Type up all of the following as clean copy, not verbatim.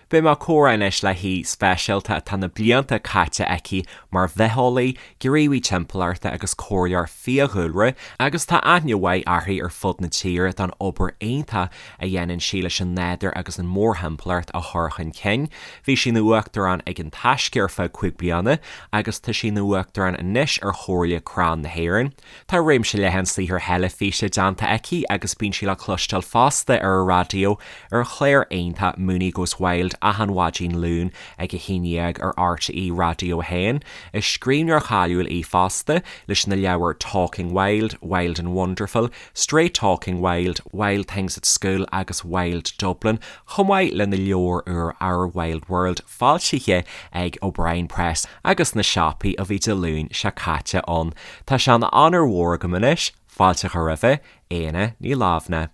Beidh mé ag comhrá anois le haoi speisialta atá na blianta caite aici mar bhitheolaí, gníomhaí timpeallachta agus comhairleoir fiadhúlra agus tá aithne mhaith uirthi ar fud na tíre don obair iontach a dhéanann sí leis an nádúr agus an mórthimpeallacht a chur chun cinn. Bhí sí ina uachtarán ag An Taisce ar feadh 5 bliana agus tá sí ina uachtarán anois ar Chomhairle Crann na hÉireann. Tá réimse leathan saothair theilifíse déanta aici agus bíonn sí le cloisteáil fosta ar an raidió ar an chlár iontach Mooney Goes Wild achan mhaidin Luain ag 11 ar RTÉ Raidió 1. Is scríbhneoir cáiliúil í fosta leis na leabhair Talking Wild, Wild and Wonderful, Straight Talking Wild, Wild Things at School agus Wild Dublin, chomh maith lena leabhar úr Our Wild World foilsithe ag O'Brien Press agus sna siopaí ó bhí Dé Luain seo caite ann. Tá sé ina onóir mhór agam anois fáilte a chur roimhe, Éanna Ní Lamhna.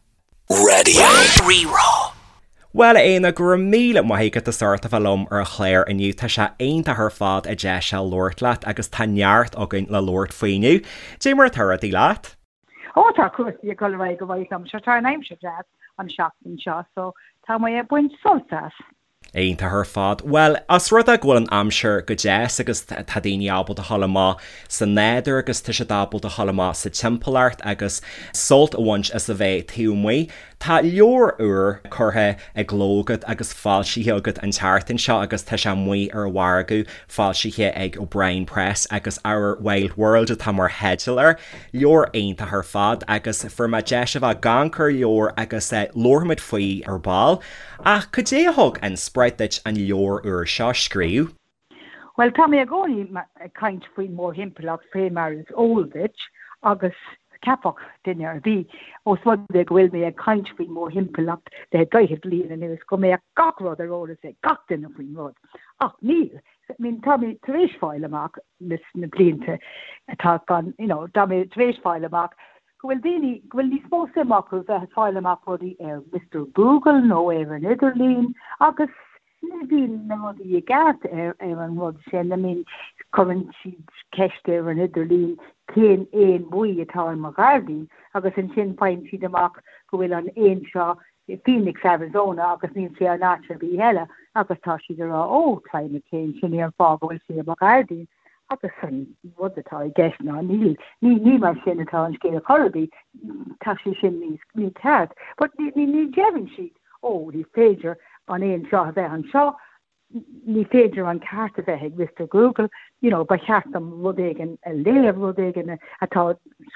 Radio Rí-Rá. Bhuel, a Éanna, go raibh míle maith agat as ucht a bheith liom ar an chlár inniu. Tá sé iontach ar fad an deis seo labhairt leat agus tá neart againn le labhairt faoi inniu. Dé mar atá rudaí leat? Ó tá cúrsaí ag dul ar aghaidh go maith liom. Sure tá an aimsir deas an seachtain seo so tá mé ag baint sult as. Iontach ar fad. Bhuel, os rud é go bhfuil an aimsir go deas agus tá daoine ábalta a dhul amach sa nádúr agus tá siad ábalta a dhul amach sa timpeallacht agus sult a bhaint as a bheith taobh amuigh, tá leabhar úr curtha i gcló agat agus foilsithe agat an tseachtain seo agus tá sé amuigh ar an mhargadh, foilsithe ag O'Brien Press agus Our Wild World atá mar theideal air. Leabhar iontach ar fad agus fuair mé deis a bheith ag amharc ar an leabhar agus labharfaimid faoi ar ball. Ach cad é a thug inspioráid duit an leabhar úr seo a scríobh? Bhuel, tá mé i gcónaí ag caint faoin mórthimpeallacht, fé mar is eol duit, agus cheapfadh duine ar bith, ós rud é go bhfuil mé ag caint faoin mórthimpeallacht le daichead bliain anuas, go mbeadh gach rud ar eolas ag gach duine faoin rud. Ach níl. I mean, tá mé tar éis fáil amach leis na blianta atá gan, you know, tá mé tar éis fáil amach go bhfuil daoine, go bhfuil níos mó suim acu bheith ag fáil amach rudaí ar Mister Google nó ar an idirlíon agus ní bhíonn na rudaí i gceart ar ar an rud sin. I mean, cuireann siad ceist ar an idirlíon cén éan buí atá i mo ghairdín agus ansin faigheann siad amach go bhfuil an éan seo i Phoenix, Arizona agus níl sé in áit ar bith eile agus tá siad ag rá oh, climate change, sin é an fáth go bhfuil sé i mo ghairdín. Agus an rud atá i gceist ná níl, ní, ní mar sin atá an scéal chor ar bith, tá sé sin níos, mícheart. But ní, ní, ní deireann siad, ó, ní féidir an éan seo a bheith anseo, ní féidir an ceart a bheith ag Mister Google, you know, ba cheart dom rud éigin a léamh, rud éigin atá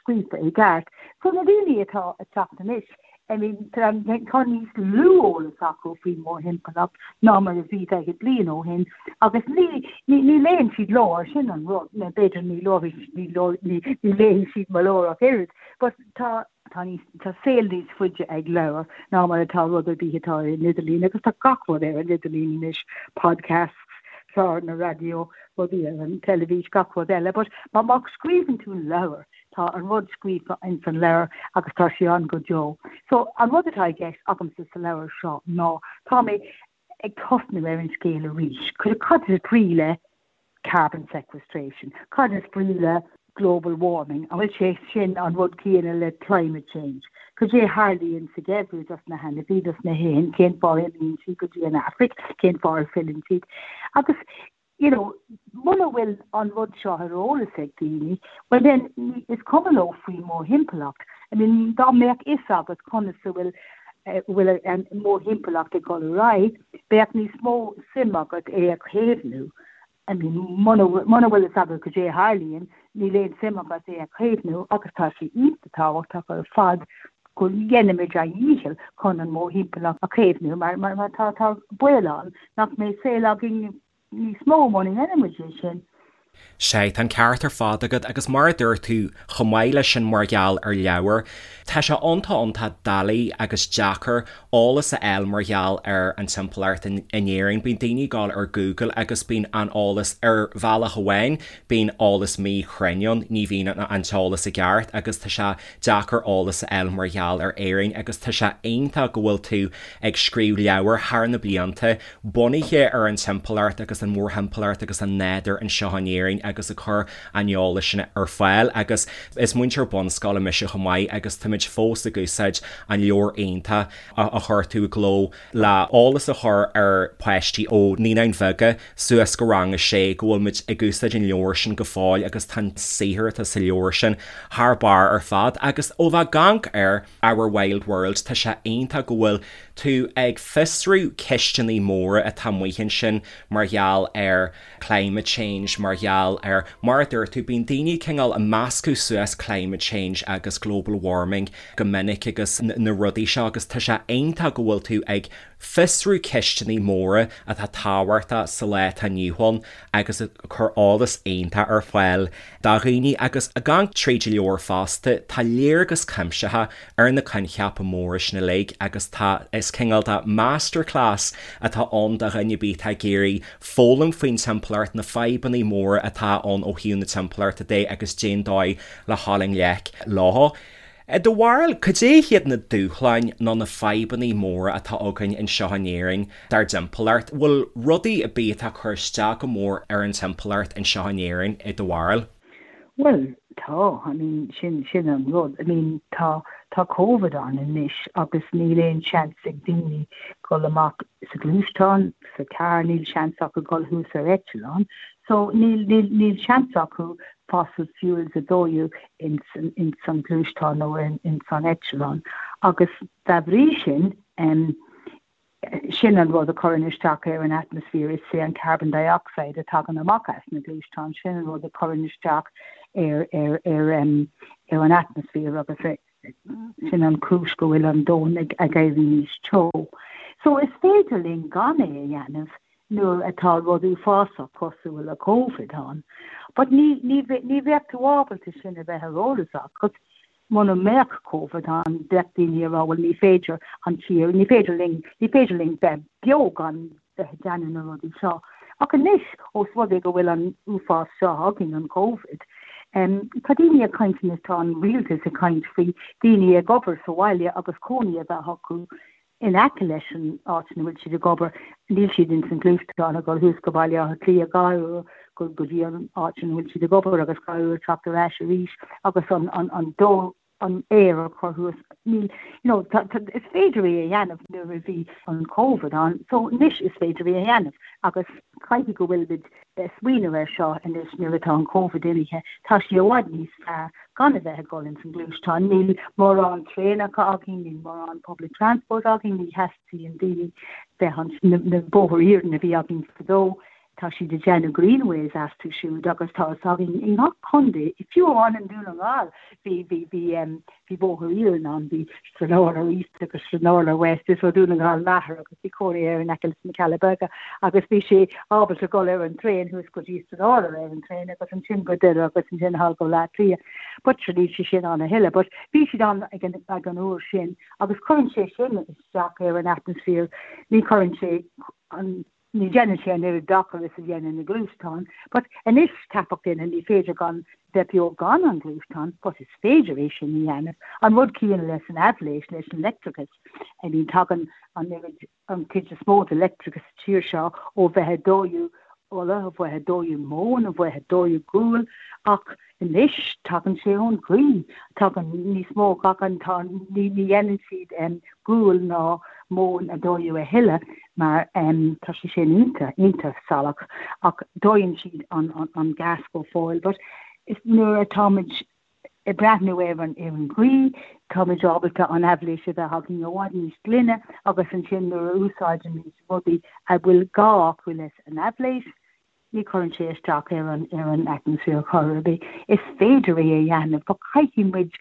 scríofa i gceart. So na daoine atá ag teacht anois, I mean, tá níos lú eolas acu faoin mórthimpeallacht ná mar a bhí daichead bliain ó shin agus ní, ní, ní léann siad leabhair, sin an rud, nó b'fhéidir ní ní, ní, ní léann siad mo leabhar ach oiread, but tá, tá níos, tá saol níos faide ag leabhar ná mar atá rud ar bith atá ar an idirlíon agus tá gach rud ar an idirlíon anois, podcasts, cláranna raidió, rudaí ar an teilifís, gach rud eile, but má, má scríobhann tú leabhar, Tá an rud scríofa ins an leabhar agus tá sé ann go deo. So, an rud atá i gceist agamsa sa leabhar seo ná tá mé ag tosnú ar an scéal arís. Cad is brí le carbon sequestration? Cad is brí le global warming? An bhfuil sé sin an rud céanna le climate change? Cad é a tharlaíonn sa gheimhreadh dos na hainmhí, dos na héin? Cén fáth a imíonn siad go dtí an Afraic? Cén fáth ar filleann siad? Agus you know, muna bhfuil an rud seo ar eolas ag daoine, well then is cuma leo faoin mórthimpeallacht. I mean, dá mbeadh fhios agat conas a bhfuil bhfuil an mórthimpeallacht ag dul ar aghaidh, bheadh níos mó suim agat é a chaomhnú. I mean, muna muna bhfuil fhios agat cad é a tharlaíonn, níl aon suim agat é a chaomhnú agus tá sé iontach tábhachtach ar fad go ndéanaimid ár ndícheall chun an mórthimpeallacht a chaomhnú mar mar tá tá baol ann nach mbeidh saol againn níos mó muna ndéanaimid é sin. Sea, tá an ceart ar fad agat agus mar a dúirt tú, chomh maith leis sin mar gheall ar leabhair, tá sé iontach iontach doiligh agus deacair eolas a fháil mar gheall ar an timpeallacht in Éirinn. Bíonn daoine ag dul ar Google agus bíonn an eolas ar bhealach amháin, bíonn eolas míchruinn ann, ní bhíonn an t-eolas i gceart agus tá sé deacair eolas a fháil mar gheall ar Éirinn agus tá sé iontach go bhfuil tú ag scríobh leabhar thar na blianta bunaithe ar an timpeallacht agus an mhórthimpeallacht agus an nádúr anseo in Éirinn. Éirinn agus ag cur an eolais sin ar fáil agus is múinteoir bunscoile mise chomh maith agus táimid fós ag úsáid an leabhar iontach a chuir tú i gcló le eolas a chur ar pháistí ó Naíonáin Bheaga suas go rang a sé go bhfuil muid ag úsáid an leabhar sin go fóill agus tá an saothar atá sa leabhar sin thar barr ar fad agus ó bheith ag amharc ar Our Wild World tá sé iontach go bhfuil tú ag fiosrú ceisteanna móra atá amuigh ansin mar gheall ar climate change mar gheall ar, mar a dúirt tú, bíonn daoine cineál ag meascadh suas climate change agus global warming go minic agus na rudaí seo agus tá sé iontach go bhfuil tú ag fiosrú ceisteanna móra atá tábhachtach sa lá atá inniu ann agus ag cur eolas iontach ar fáil do dhaoine agus ag amharc tríd an leabhar fosta tá léargas cuimsitheach ar na coincheapa móra sin uilig agus tá is cineál de masterclass atá ann do dhuine ar bith atá ag iarraidh foghlaim faoin timpeallacht, na fadhbanna móra atá ann ó thaobh na timpeallachta de agus cén dóigh le dhul i ngleic leo. I do bharúil, cad é hiad na dúshláin nó na fadhbanna móra atá againn anseo in Éirinn dár dtimpeallacht? Bhfuil rudaí ar bith atá ag cur isteach go mór ar an timpeallacht anseo in Éirinn i do bharúil? Bhuel, tá, I mean, sin, sin an rud. I mean, tá, tá Covid ann anois agus níl aon seans ag daoine dul amach sa ghluaisteán, sa charr, níl seans acu dul thuas ar eitleán. So, níl, níl, níl seans acu fossil fuels a dóú ins, ins an gluaisteán nó in, ins an eitleán. Agus dá bhrí sin, em, Sin an rud a chuireann isteach ar an atmaisféar, is é an carbon dioxide a tagann amach as na gluaisteáin, sin an rud a chuireann isteach ar ar ar ar an atmaisféar agus sin an chúis go bhfuil an domhan ag ag éirí níos teo. So is féidir linn gan é a dhéanamh nuair atá rud uafásach cosúil le Covid ann, but ní ní ní bheadh tú ábalta sin a bheith ar eolas agat Muna mbeadh Covid ann, bheadh daoine ag rá bhuel ní féidir an tír, ní féidir linn, ní féidir linn bheith beo gan bheith ag déanamh na rudaí seo. Ach anois, ós rud é go bhfuil an uafás seo againn, an Covid, tá daoine ag caint anois, tá an rialtas ag caint faoi daoine ag obair sa bhaile agus cónaí a bheith acu in aice leis an áit ina bhfuil siad ag obair, níl siad ins an ghluaisteán ag dul thuas go Baile Átha Cliath gach uair go go dtí an áit ina bhfuil siad ag obair agus gach uair teacht ar ais arís agus an an an dó an aer a chur thuas. Níl, you know, tá, tá, is féidir é a dhéanamh nuair a bhí an Covid ann, so anois is féidir é a dhéanamh agus caithfidh go bhfuil muid ag smaoineamh air seo anois nuair atá an Covid imithe, tá sé i bhfad níos fearr gan a bheith ag dul ins an gluaisteán. Níl mórán traenacha againn, níl mórán public transport againn, ní theastaíonn daoine bheith an na bóithre iarainn a bhí againn fadó, tá siad ag déanamh greenways astu siúd agus tá fhios againn i ngach contae, fiú amháin i nDún na nGall bhí bhí bhí bhí bóthar iarainn ann, bhí Stranorlar East agus Stranorlar West, is ó Dhún na nGall m'athair agus bhí cónaí air in aice leis na Cealla Beaga agus bhí sé ábalta dul ar an traein thuas go dtí Stranorlar ar an traein agus ansin go Doire agus ansin thall go Bleá Cliath. But sure níl sé sin ann a thuilleadh. But bhí siad ann ag an, ag an uair sin agus cuireann sé sin isteach ar an atmaisféar, ní chuireann sé an Ní dhéanann sé an oiread dochair is a dhéanann na gluaisteáin, but anois ceapfadh duine ní féidir gan bheith beo gan an gluaisteán, but is féidir é sin a dhéanamh. An rud céanna leis an aibhléis, leis an leictreachas. I mean tagann an oiread, an chuid is mó de leictreachas sa tír seo ó bheith ag dóú ola, ó bheith ag dóú móin, ó bheith ag dóú gual, ach Anois tagann sé ón ghaoth, tagann níos mó, tagann, tá, ní dhéanann siad gual ná móin a dóú a thuilleadh mar tá sé sin iontach, iontach salach ach dóigheann siad an, an gas go fóill. But is nuair atáimid ag breathnú ar an, ar an ghaoth, táimid ábalta an aibhléis a bheith againn i bhfad níos glaine agus ansin nuair a úsáidimid rudaí a bhfuil gá acu leis an aibhléis, Ní chuireann sé isteach ar an ar an atmaisféar chor ar bith. Is féidir é a dhéanamh, but caithfidh muid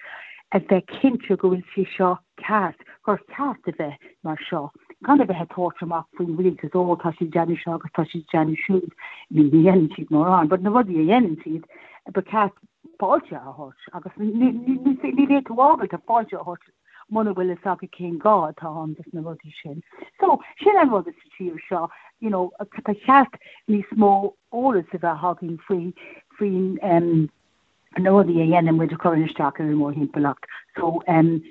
a bheith cinnte go bhfuil sé seo ceart, gur ceart a bheith mar seo, gan a bheith ag tabhairt amach faoin rialtas, ó tá siad ag déanamh seo agus tá siad ag déanamh siúd. I mean, ní dhéanann siad mórán, but na rudaí a dhéanann siad, ba cheart fáilte a thabhairt agus ní ní ní bheidh tú ábalta fáilte a thabhairt muna bhfuil fhios agat cén gá atá ann dos na rudaí sin. So, sin an rud sa tír seo, you know, ba cheart níos mó eolas a bheith againn faoi, faoin, em, na rudaí a dhéanann muid a chuireann isteach ar an mórthimpeallacht. So, em.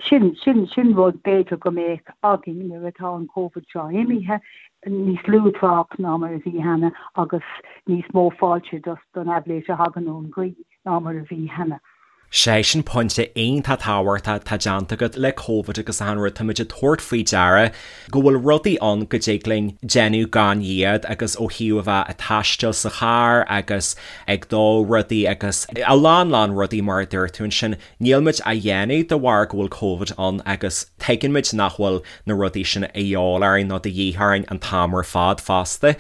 Sin, sin, sin rud b'fhéidir go mbeadh againn nuair atá an Covid seo imithe, níos lú trácht ná mar a bhí cheana agus níos mó fáilte don aibhléis a thagann ón ghaoth ná mar a bhí cheana. Sé sin pointe iontach tábhachtach atá déanta agat le Covid agus achan rud, táimid ag tabhairt faoi deara go bhfuil rudaí ann go dtig linn déanamh gan iad agus ó thaobh a bheith ag taisteal sa charr agus ag dó rudaí agus a lán lán rudaí mar a dúirt tú ansin, Níl muid á dhéanamh de bharr go bhfuil Covid ann agus tuigeann muid nach bhfuil na rudaí sin a dhíobháil orainn nó de dhíth orainn an t-am ar fad fosta.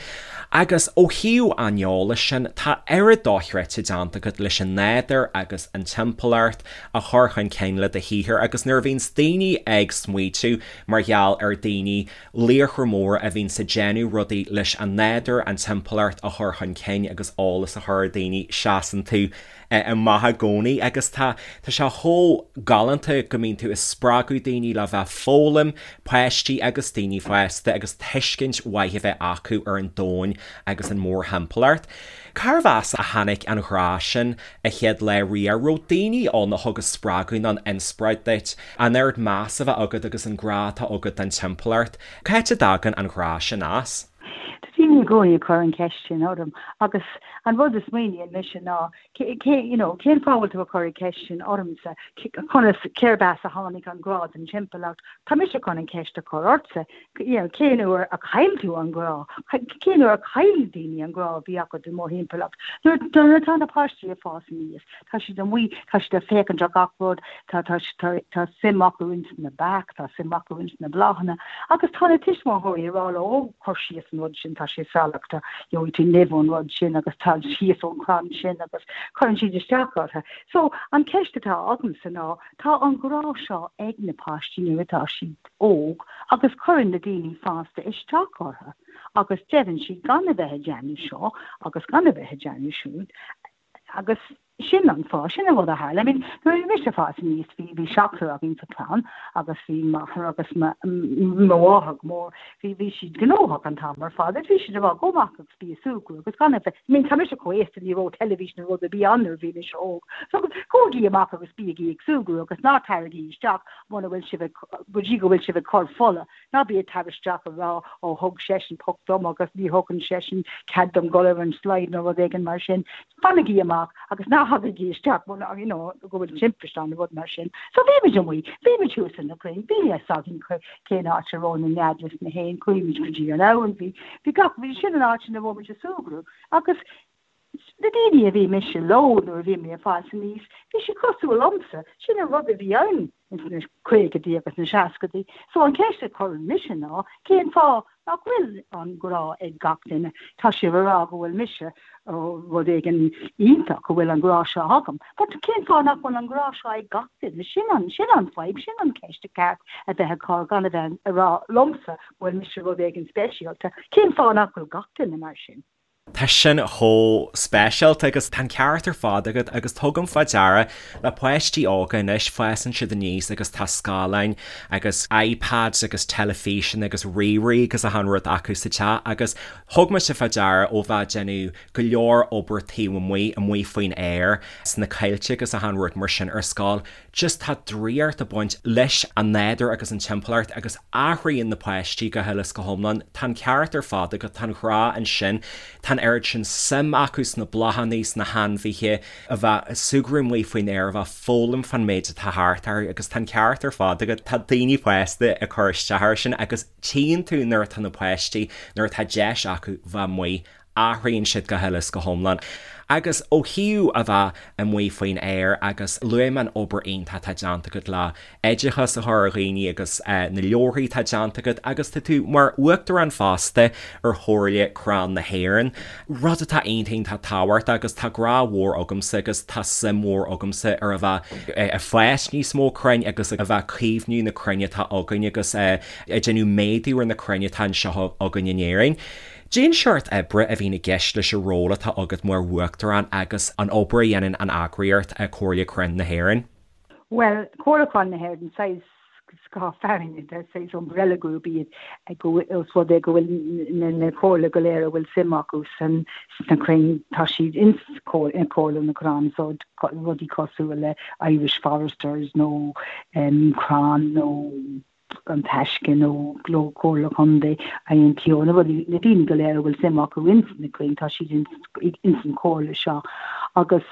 Agus ó thaobh an eolais sin, tá oiread dochreidte déanta agat leis an nádúr agus an timpeallacht a chur chun cinn le do shaothar agus nuair a bhíonns daoine ag smaoitiú mar gheall ar daoine, laochra móra a bhíonns ag déanamh rudaí leis an nádúr, an timpeallacht a chur chun cinn agus eolas a chur ar daoine, seasann tú amach i gcónaí agus tá tá sé chomh galánta go mbíonn tú ag spreagadh daoine le bheith ag foghlaim, páistí agus daoine fásta agus tuiscint mhaith a bheith acu ar an domhan agus an mórthimpeallacht. Cárbh as a tháinig an ghrá sin a chéad lá riamh? Raibh daoine ann a thug an spreagadh nó an inspioráid duit, an oiread meas a bheith agat agus an grá atá agat don timpeallacht? Cá háit a dtagann an ghrá sin as? Tá daoine i gcónaí ag cur an cheist sin orm agus an rud a smaoiníonn mise ná cé, you know, cén fáth a bhfuil tú ag cur an cheist sin ormsa? Conas, cérb as a tháinig an grá don timpeallacht? Tá mise chun an cheist a chur ortsa, you know, cén uair a chaill tú an grá? Cén uair a chaill daoine an grá a bhí acu don mórthimpeallacht? Nuair atá na páistí ag fás aníos, Tá siad amuigh, tá siad ag féachaint ar gach rud, tá, tá, tá, tá suim acu ins na beacha, tá suim acu ins na bláthanna agus tá na tuismitheoirí ag rá leo, ó, cuir síos an rud sin, tá sé salach, tá, gheobhaidh tú nimh ón rud sin agus tar síos ón chrann sin agus cuireann siad isteach orthu. So, an ceist atá agamsa ná, tá an grá seo ag na páistí nuair atá siad óg agus cuireann na daoine fásta isteach orthu agus deireann siad gan a bheith ag déanamh seo agus gan a bheith ag déanamh siúd. Agus sin an fáth, sin an rud a tharla. I mean, nuair a bhí mise ag fás aníos, bhí, bhí seachtar againn sa chlann agus bhí m'athair agus mo, mo mháthair go mór, bhí, bhí siad gnóthach an t-am ar fad agus bhí siad ag rá, gabh amach agus bí ag súgradh agus gan a bheith, I mean, tá mise chomh aosta, ní raibh teilifís nó rud ar bith ann nuair a bhí mise óg. So, gabhaigí amach agus bígí ag súgradh agus ná taraigí isteach muna bhfuil sibh ag, go dtí go bhfuil sibh ag cur fola. Ná bí ag tar isteach ag rá, ó thug seisean poc dom agus ní thugann seisean cead dom dul ar an slide nó rud éigin mar sin. Fanaigí amach agus ná thagaigí isteach muna, you know, go bhfuil timpiste ann nó rud mar sin. So bhí muid amuigh, bhí muid thuas ar na crainn, bhí a fhios againn cén áit a raibh na nead leis na héin, chuaigh muid go dtí an abhainn, bhí, bhí gach, bhí sin an áit ina raibh muid ag súgradh agus na daoine a bhí mise leo nuair a bhí mé ag fás aníos, bhí siad cosúil liomsa, sin an rud a bhí ann ins na caogaidí agus na seascaidí. So an cheist a chuireann mise ná, cén fáth nach bhfuil an grá ag gach duine? Tá sibh ag rá go bhfuil mise rud éigin iontach, go bhfuil an grá seo agam, but cén fáth nach bhfuil an grá seo ag gach duine? Sin an, sin an fadhb, sin an ceist ba cheart a bheith ag cur, gan a bheith ag rá liomsa go bhfuil mise rud éigin speisialta. Cén fáth nach bhfuil gach duine mar sin? Tá sin chomh speisialta agus tá an ceart ar fad agat agus tugaim fá deara le páistí óga anois, fásann siad aníos agus tá scáileáin agus iPads agus teilifíseanna agus ríomhairí agus achan rud acu sa teach agus thug mise fá deara ó bheith ag déanamh go leor obair taobh amuigh, amuigh faoin aer, sna coillte agus achan rud mar sin ar scoil, Just tá draíocht ag baint leis an nádúr agus an timpeallacht agus athraíonn na páistí go huile is go hiomlán. Tá an ceart ar fad agat, tá an grá ansin, tá an oiread sin suim acu sna bláthanna, sna hainmhithe, a bheith ag súgradh amuigh faoin aer, a bheith ag foghlaim fán méid atá thart orthu agus tá an ceart ar fad agat, tá daoine fásta ag cur isteach air sin agus tchíonn tú nuair atá na páistí, nuair atá deis acu bheith amuigh athraíonn siad go huile is go hiomlán. Agus ó thaobh a bheith amuigh faoin aer agus luaigh mé an obair iontach atá déanta agat le oideachas a chur ar dhaoine agus na leabharthaí atá déanta agat agus tá tú mar uachtarán fosta ar Chomhairle Crann na hÉireann, rud atá iontach iontach tábhachtach agus tá grá mhór agamsa agus tá suim mhór agamsa ar a bheith ag fás níos mó crainn agus a bheith ag caomhnú na crainn atá againn agus ag déanamh méadú ar na crainn atá anseo againn in Éirinn. Cén seort oibre a bhíonn i gceist leis an ról atá agat mar Uachtarán agus an obair a dhéanann an eagraíocht, Comhairle Crann na hÉireann? Bhuel, Comhairle Crann na hÉireann, saghas. scáth fearainn, saghas umbrella group iad, os rud é go bhfuil na comhairle go léir a bhfuil suim acu sna crainn, tá siad ins Comhairle na gCrann, so rudaí cosúil le Irish Foresters nó Crann nó An Taisce nó Comhairle Contae, INTO, na rudaí, na daoine go léir a bhfuil suim acu ins na crainn, tá siad ins an chomhairle seo agus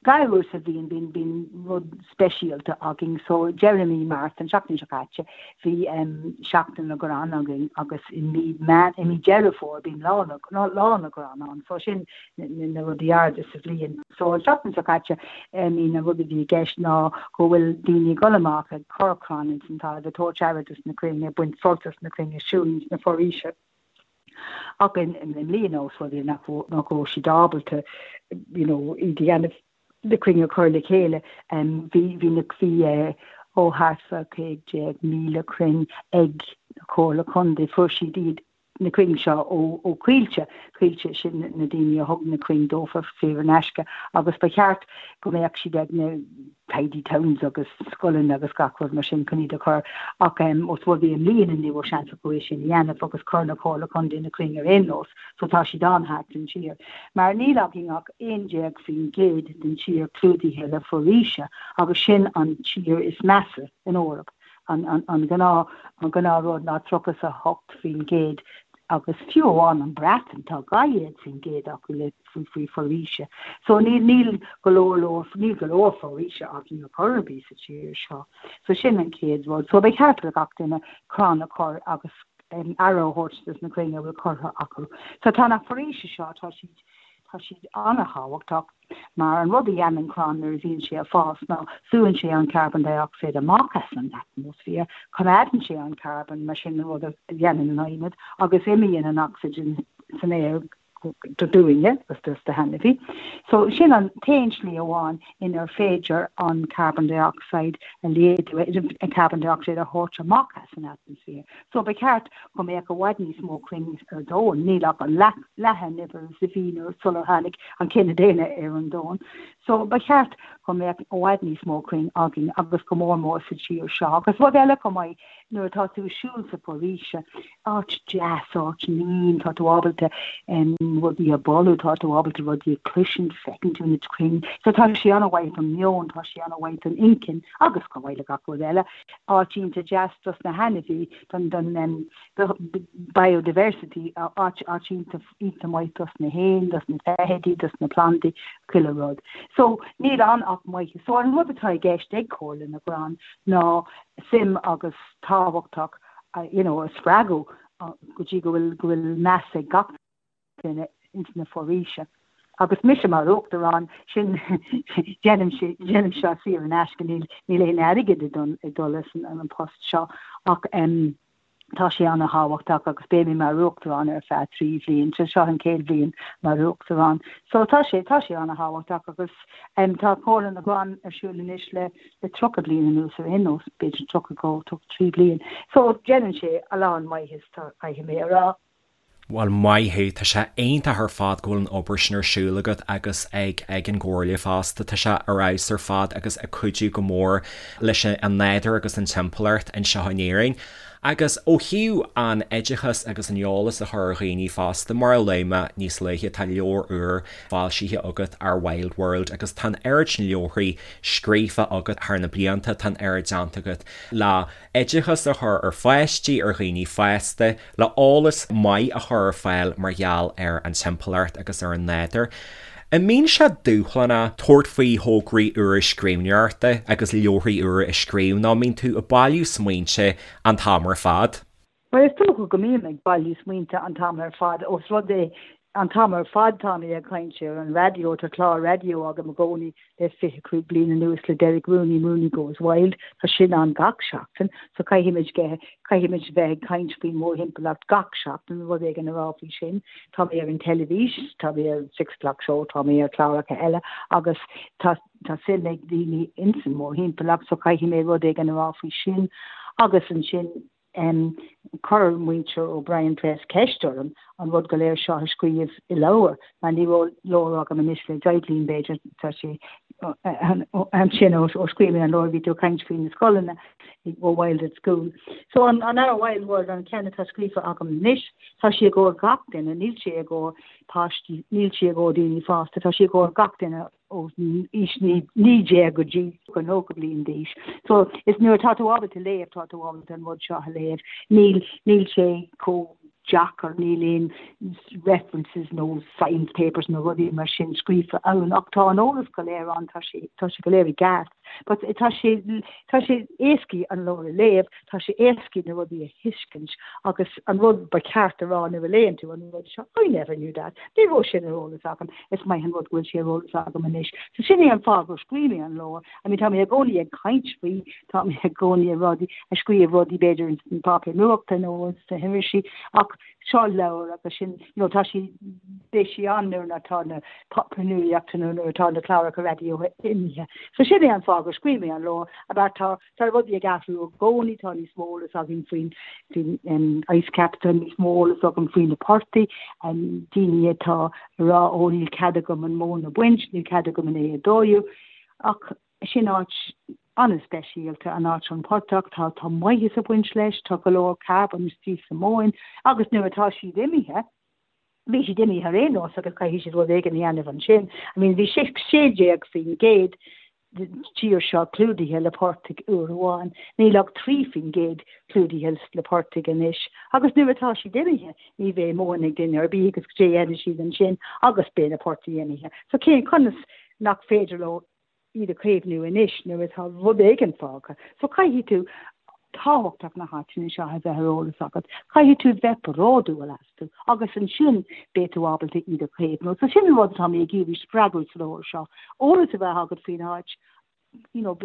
Dhá uair sa bhliain bíonn bíonn rud speisialta againn so deireadh mí Márta, an seachtain seo caite, bhí Seachtain na gCrann againn agus i mí Meán i mí Deireadh Fómhair bíonn Lá na Lá na gCrann ann so sin na rudaí arda sa bhliain. So an seachtain seo caite I mean an rud a bhí i gceist ná go bhfuil daoine ag dul amach ag cur crann ins an talamh ag tabhairt aire dos na crainn ag baint sult as na crainn ag siúl ins na foraoise. Ach i mbliana os rud é nach raibh siad ábalta you know iad a dhéanamh, na crainn a chur le chéile, bhí bhí na bhí ó thart fá 15,000 crainn ag na Comhairle Contae, fuair siad iad na crainn seo ó ó Coillte, Coillte sin na daoine a thug na crainn dófa saor in aisce agus ba cheart go mbeadh siad ag na tidy towns agus scoileanna agus gach rud mar sin chun iad a chur ach os rud é i mbliana ní raibh seans acu é sin a dhéanamh agus chuir na Comhairle Contae na crainn ar aon nós so tá siad ann thart an tír. Mar níl againn ach 11% den tír clúdaithe le foraoise agus sin an tír is measa in Eoraip. An an gnáth an gnáth rud ná 38% agus fiú amháin an Breatain tá 12% acu le faoi foraoise. So níl, níl go leor leor, níl go leor foraoise againn ar chor ar bith sa tír seo. So sin an chéad rud. So ba cheart do gach duine crann a chur agus aire a thabhairt dos na crainn a bhfuil curtha acu. So tá na foraoise seo, tá siad, tá siad an-thábhachtach mar an rud a dhéanann crann nuair a bhíonn sé ag fás ná súann sé an carbon dioxide amach as an atmaisféar, coimeádann sé an carbon, mar sin an rud a dhéanann an adhmad, agus imíonn an ocsaigin san aer dúinne agus dos na hainmhithe. So sin an t-aon slí amháin inar féidir an carbon dioxide a laghdú, an carbon dioxide a thabhairt amach as an atmaisféar. So ba cheart go mbeadh i bhfad níos mó crainn ar domhan, níl ach an leath, leath an uimhir is a bhí nuair sular tháinig an cine daonna ar an domhan. So ba cheart go mbeadh i bhfad níos mó crainn againn agus go mór mór sa tír seo. Agus rud eile chomh maith, nuair atá tú ag siúl sa foraoise, áit deas, áit mín, tá tú ábalta rudaí a bholú, tá tú ábalta rudaí a chloisint, feiceann tú na crainn. So tá sé an-mhaith don meon, tá sé an-mhaith don inchinn agus chomh maith le gach rud eile, áit iontach deas dos na hainmhí, don don biodiversity, áit áit iontach iontach maith dos na héin, dos na feithidí, dos na plandaí, chuile rud. So níl ann ach maitheas. So an rud atá i gceist ag Comhairle na gCrann ná suim agus tábhachtach you know a spreagadh go dtí go bhfuil go bhfuil meas ag gach duine ins na foraoise. Agus mise mar uachtarán, sin déanaim déanaim seo saor in aisce, níl níl aon airgead ag dul ag dul leis an an post seo ach em tá sé an-thábhachtach agus beidh mé mar uachtarán ar feadh 3 bhliain, so seo an chéad bhliain mar uachtarán. So tá sé tá sé an-thábhachtach agus em tá Comhairle na gCrann ar siúl anois le le 30 bliain anuas ar aon nós, b'fhéidir 32, 33 bliain. So déanann sé a lán maitheas, tá, caithfidh mé a rá. Bhuel, maith thú, tá sé iontach ar fad go bhfuil an obair sin ar siúl agat agus ag ag an gComhairle fosta. Tá sé ar fheabhas ar fad agus ag cuidiú go mór leis an nádúr agus an timpeallacht anseo in Éirinn. Agus ó thaobh an oideachas agus an eolas a chur ar dhaoine fosta, mar a luaigh mé níos luaithe, tá leabhar úr foilsithe agat, Our Wild World, agus tá an oiread sin leabharthaí scríofa agat thar na blianta, tá an oiread déanta agat le oideachas a chur ar pháistí, ar dhaoine fásta, le eolas maith a chur ar fáil mar gheall ar an timpeallacht agus ar an nádúr. An mbíonn sé dúshlánach tabhairt faoi thograí úra scríbhneoireachta agus leabharthaí úra a scríobh nó an mbíonn tú ag bailiú smaointe an t-am ar fad? Bhuel, is dócha go mbím ag bailiú smaointe an t-am ar fad, ós rud é an t-am ar fad tá mé ag caint ar an raidió, tá clár raidió agam i gcónaí le 25 bliain anuas le Derek Rooney, Rooney Goes Wild, tá sin ann gach seachtain, so caithfimid caithfimid bheith ag caint faoin mórthimpeallacht gach seachtain, rud éigin a rá faoi sin. Tá mé ar an teilifís, tá mé ar Six O'Clock Show, tá mé ar chláracha eile agus tá tá suim ag daoine ins an mórthimpeallacht so caithfidh mé rud éigin a rá faoi sin agus ansin Chuir muintir O'Brien Press ceist orm an rud go léir seo a scríobh i leabhar, mar ní raibh leabhar agam anois le deich bliain, b'fhéidir, tá sé Ansin ó scríobh mé an leabhar bhí tú ag caint faoi na scoileanna ó Wild at School. So an an Our Wild World an ceann atá scríofa agam anois, tá sé i gcomhair gach duine, níl sé i gcomhair páistí, níl sé i gcomhair daoine fásta, tá sé i gcomhair gach duine ó aois 19 go dtí 90 bliain d'aois. So is nuair atá tú ábalta léamh, tá tú ábalta an rud seo a léamh. Níl níl sé chomh deacair, níl aon references nó science papers nó rudaí mar sin scríofa ann ach tá an eolas go léir ann, tá sé tá sé go léir i gceart. But tá sé tá sé éascaí an leabhar a léamh, tá sé éascaí na rudaí a thuiscint agus an rud ba cheart a rá nuair a léann tú an rud seo, I never knew that, ní raibh sin ar eolas agam, is maith an rud go bhfuil sé ar eolas agam anois. So sin é an fáth gur scríobh mé an leabhar. I mean tá mé i gcónaí ag caint faoi, tá mé i gcónaí ag rudaí, ag scríobh rudaí b'fhéidir ins an páipéar nuachta nó sna hirisí ach seo leabhar agus sin, you know, tá sí, beidh sí ann nuair atá na páipéir nuachta nó nuair atá na cláracha raidió imithe. So sin é an fáth gur scríobh mé an leabhar, about tá, tá rudaí ag athrú i gcónaí, tá níos mó eolas againn faoin, faoin um, ice cap, tá níos mó eolas agam faoi na portaigh, um, daoine atá ag rá ó níl cead agam an mhóin a bhaint, níl cead agam an é a dóú, ach sin áit an-speisialta, an áit an portach, tá tá maitheas ag baint leis, tá go leor carbón istigh sa mhóin agus nuair atá siad imithe, bhí siad imithe ar aon nós agus caithfidh siad rud éigin a dhéanamh ansin. I mean bhí 16% den tír seo clúdaithe le portaigh uair amháin, níl ach 3% clúdaithe le portaigh anois agus nuair atá siad imithe ní bheidh móin ag duine ar bith agus cad é a dhéanfaidh siad ansin agus beidh na portaigh imithe. So cén conas nach féidir leo iad a chaomhnú anois nuair atá rud éigin fágtha. So caithfidh tú tábhachtach na háiteanna seo a bheith ar eolas agat. Caithfidh tú bheith bródúil astu agus ansin beidh tú ábalta iad a chaomhnú. So sin an rud atá mé ag iarraidh spreagadh sa leabhar seo. Eolas a bheith agat faoin áit, you know,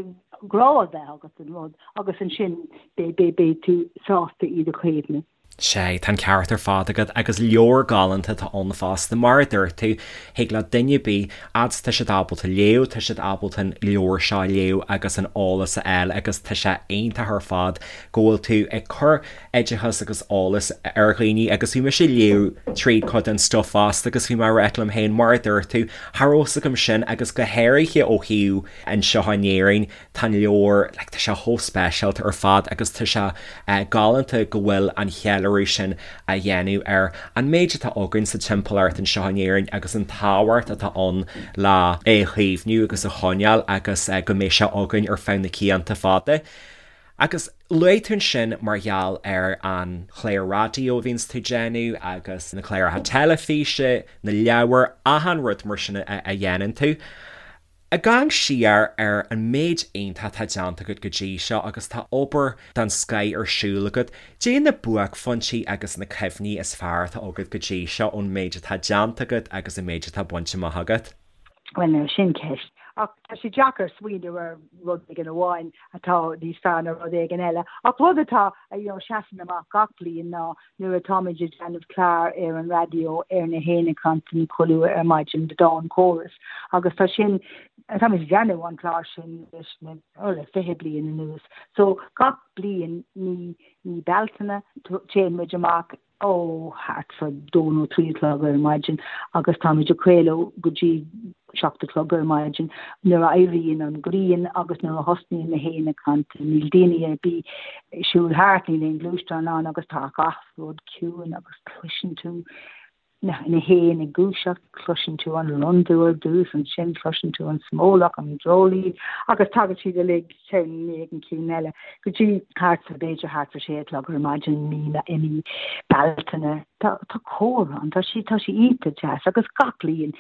grá a bheith agat don rud agus ansin beidh tú sásta iad a chaomhnú. Sea, tá an ceart ar fad agat, agus leabhar galánta atá ann fosta, mar a dúirt tú, thig le duine ar bith, fhad is tá siad ábalta léamh, tá siad ábalta an leabhar seo a léamh agus an eolas a fháil agus tá sé iontach ar fad go bhfuil tú ag cur oideachas agus eolas ar dhaoine agus bhí mise ag léamh tríd cuid den stuif fosta agus bhí mé ag rá liom féin, mar a dúirt tú, cha raibh fhios agam sin agus go háirithe ó thaobh anseo in Éirinn, Tá an leabhar, like, tá sé chomh speisialta ar fad agus tá sé galánta go bhfuil an cheiliúradh sin á dhéanamh ar an méid atá againn sa timpeallacht anseo in Éirinn agus an tábhacht atá ann le é a chaomhnú agus a choinneáil agus go mbeidh sé againn ar feadh na cianta fada. Agus luaigh tú ansin mar gheall ar an chlár raidió a bhíonns tú ag déanamh agus na cláracha teilifíse, na leabhair, achan rud mar sin a dhéanann tú. Ag amharc siar ar an méid iontach atá déanta agat go dtí seo agus tá obair den scoith ar siúl agat, cad é na buaicphointí agus na cuimhní is fearr atá agat go dtí seo ón méid atá déanta agat agus an méid atá bainte amach agat? Bhuel now, sin ceist. Ach tá sé deacair smaoineamh ar rud éigin amháin atá níos fearr ná rud éigin eile. Ach rud atá, you know, seasann amach gach bliain ná nuair atáimid ag déanamh clár ar an raidió ar na héin ag cantain chuile uair ar maidin, The Dawn Chorus, agus tá sin, táimid ag déanamh an clár sin leis na, oh, le 20 bliain anuas. So gach bliain mí, mí Bealtaine, téann muid amach ó thart fá dó nó trí a chlog ar maidin agus táimid ag craoladh go dtí 7 a chlog ar maidin nuair a éiríonn an ghrian agus nuair a thosnaíonn na héin ag cantain. Níl daoine ar bith ag siúl thart, níl aon ghluaisteán ann agus tá gach rud ciúin agus cloiseann tú na na héin ag gluaiseacht, cloiseann tú an londubh ar dtús, ansin cloiseann tú an smólach, an dreoilín agus tagann siad uilig ceann i ndiaidh an cinn eile go dtí thart fá b'fhéidir thart fá sé a chlog ar maidin mí i mí Bealtaine. Tá tá cór ann, tá sé tá sé iontach deas agus gach bliain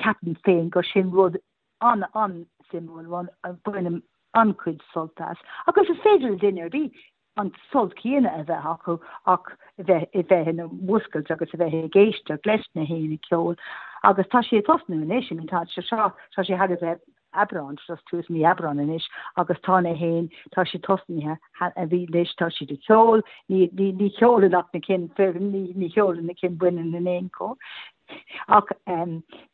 Ceapaim féin gur sin rud an-an-suimiúil, rud a bhainim an-chuid sult as. Agus is féidir le duine ar bith an sult céanna a bheith acu ach a bheith a bheith ina mhúscailt agus a bheith ag éisteacht leis na héin ag ceol. Agus tá sé ag tosnú anois, I mean tá sé seo, tá sé thar a bheith Aibreán, just tús mí Aibreán anois agus tá na héin, tá siad tosnaithe, a bhí anois, tá siad ag ceol, ní, ní, ní cheolann ach na cinn fireann, ní, ní cheolann na cinn baineann in aon chor. Ach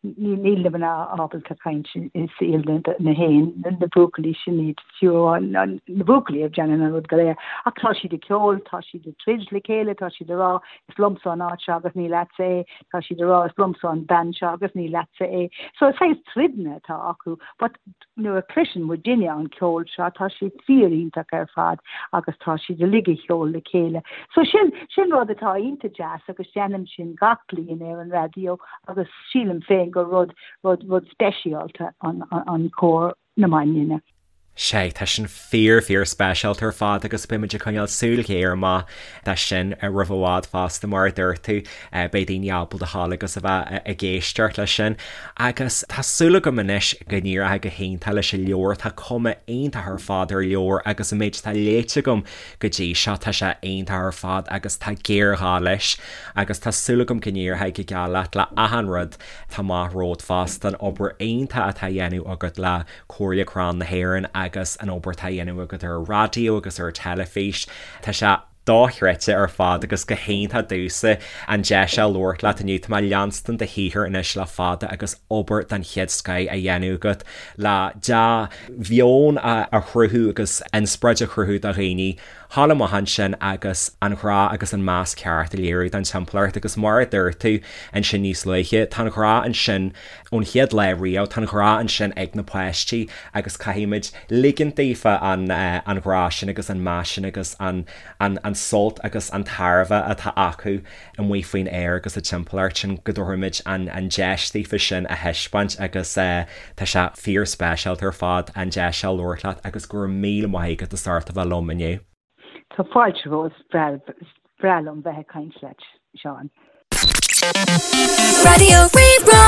níl na mná ábalta caint i saol na héin, na buachaillí sin iad, fiú amháin na buachaillí a dhéanann an rud go léir. Ach tá siad ag ceol, tá siad ag troid le chéile, tá siad ag rá is liomsa an áit seo agus ní leatsa é, tá siad ag rá is liomsa an bean seo agus ní leatsa é. So is saghas troideanna atá acu but nuair a chloiseann muidinne an ceol seo tá sé fíor iontach ar fad agus tá siad uilig ag ceol le chéile. So sin, sin rud atá iontach deas agus déanaim sin gach bliain ar an raidió agus sílim féin gur rud, rud, rud speisialta an, an cór na mbaineanna. Sea, tá sin fíor, fíor speisialta ar fad agus beidh muid ag coinneáil súil ghéar amach dó sin roimh i bhfad fosta mar a dúirt tú, beidh daoine ábalta a ghabháil agus a bheith ag éisteacht leis sin. Agus tá súil agam anois go n-éireoidh go hiontach leis an leabhar, tá cuma iontach ar fad ar an leabhar agus an méid atá léite agam go dtí seo tá sé iontach ar fad agus tá géarghá leis agus tá súil agam go n-éireoidh go geal leat le achan rud atá amach romhat fosta, an obair iontach atá á dhéanamh agat le Comhairle Crann na hÉireann agus an obair atá á dhéanamh agat ar an raidió agus ar an teilifís. Tá sé dochreidte ar fad agus go hiontach domhsa an deis seo labhairt leat inniu. Tá mé ag leanstan do shaothar anois le fada agus obair den chéad scoith á dhéanamh agat le dea-mheon a chruthú agus inspioráid a chruthú do dhaoine thall amach ansin agus an grá agus an meas ceart a léiriú don timpeallacht agus mar a dúirt tú ansin níos luaithe, tá an grá ansin ón chéad lá riamh, tá an grá ansin ag na páistí agus caithfimid ligint daofa an an grá sin agus an meas sin agus an an an sult agus an tairbhe atá acu amuigh faoin aer agus sa timpeallacht sin go dtabharfaimid an an deis daofa sin a thaispeáint agus tá sé fíor speisialta ar fad an deis seo labhairt leat agus go raibh míle maith agat as ucht a bheith liom inniu. Tá fáilte romhat, is breá liom bheith ag caint leat, Seán. Raidió Rí-Rá.